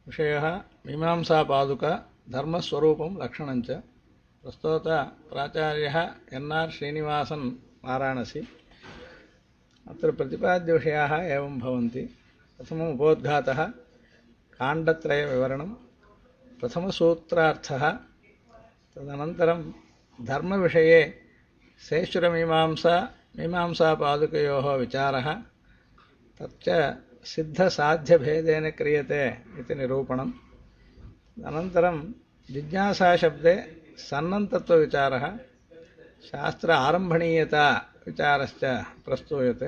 विषयः मीमांसापादुका धर्मस्वरूपं लक्षणञ्च। प्रस्तोत प्राचार्यः एन्.आर्. श्रीनिवासन् वाराणसी। अत्र प्रतिपाद्यविषयाः एवं भवन्ति। प्रथमम् उपोद्घातः, काण्डत्रयविवरणं, प्रथमसूत्रार्थः, तदनन्तरं धर्मविषये सेश्वरमीमांसा मीमांसापादुकयोः विचारः, तच्च सिद्धसाध्यभेदेन क्रियते इति निरूपणम्। अनन्तरं जिज्ञासाशब्दे सन्नन्तत्वविचारः, शास्त्र आरम्भणीयता विचारश्च प्रस्तूयते।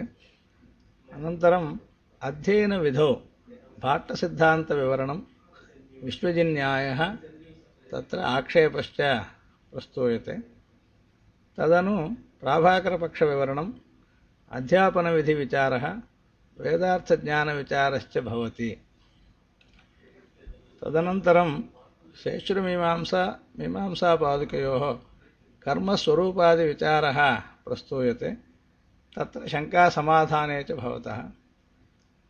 अनन्तरम् अध्ययनविधौ भाट्टसिद्धान्तविवरणं, विश्वजिन्यायः, तत्र आक्षेपश्च प्रस्तूयते। तदनु प्राभाकरपक्षविवरणम्, अध्यापनविधिविचारः, वेदार्थज्ञानविचारश्च भवति। तदनन्तरं शेषुरमीमांसा मीमांसापादुकयोः कर्मस्वरूपादिविचारः प्रस्तूयते। तत्र शङ्कासमाधाने च भवतः।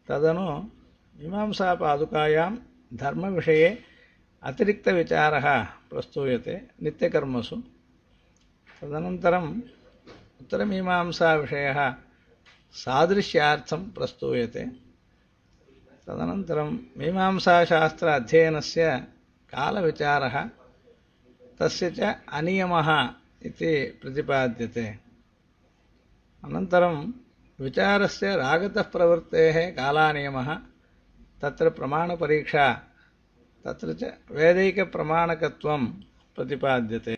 तदनु मीमांसापादुकायां धर्मविषये अतिरिक्तविचारः प्रस्तूयते नित्यकर्मसु। तदनन्तरम् उत्तरमीमांसाविषयः सादृश्यार्थं प्रस्तूयते। तदनन्तरं मीमांसाशास्त्र अध्ययनस्य कालविचारः, तस्य च अनियमः इति प्रतिपाद्यते। अनन्तरं विचारस्य रागतः प्रवृत्तेः कालानियमः, तत्र प्रमाणपरीक्षा, तत्र च वैदिकप्रमाणकत्वं प्रतिपाद्यते।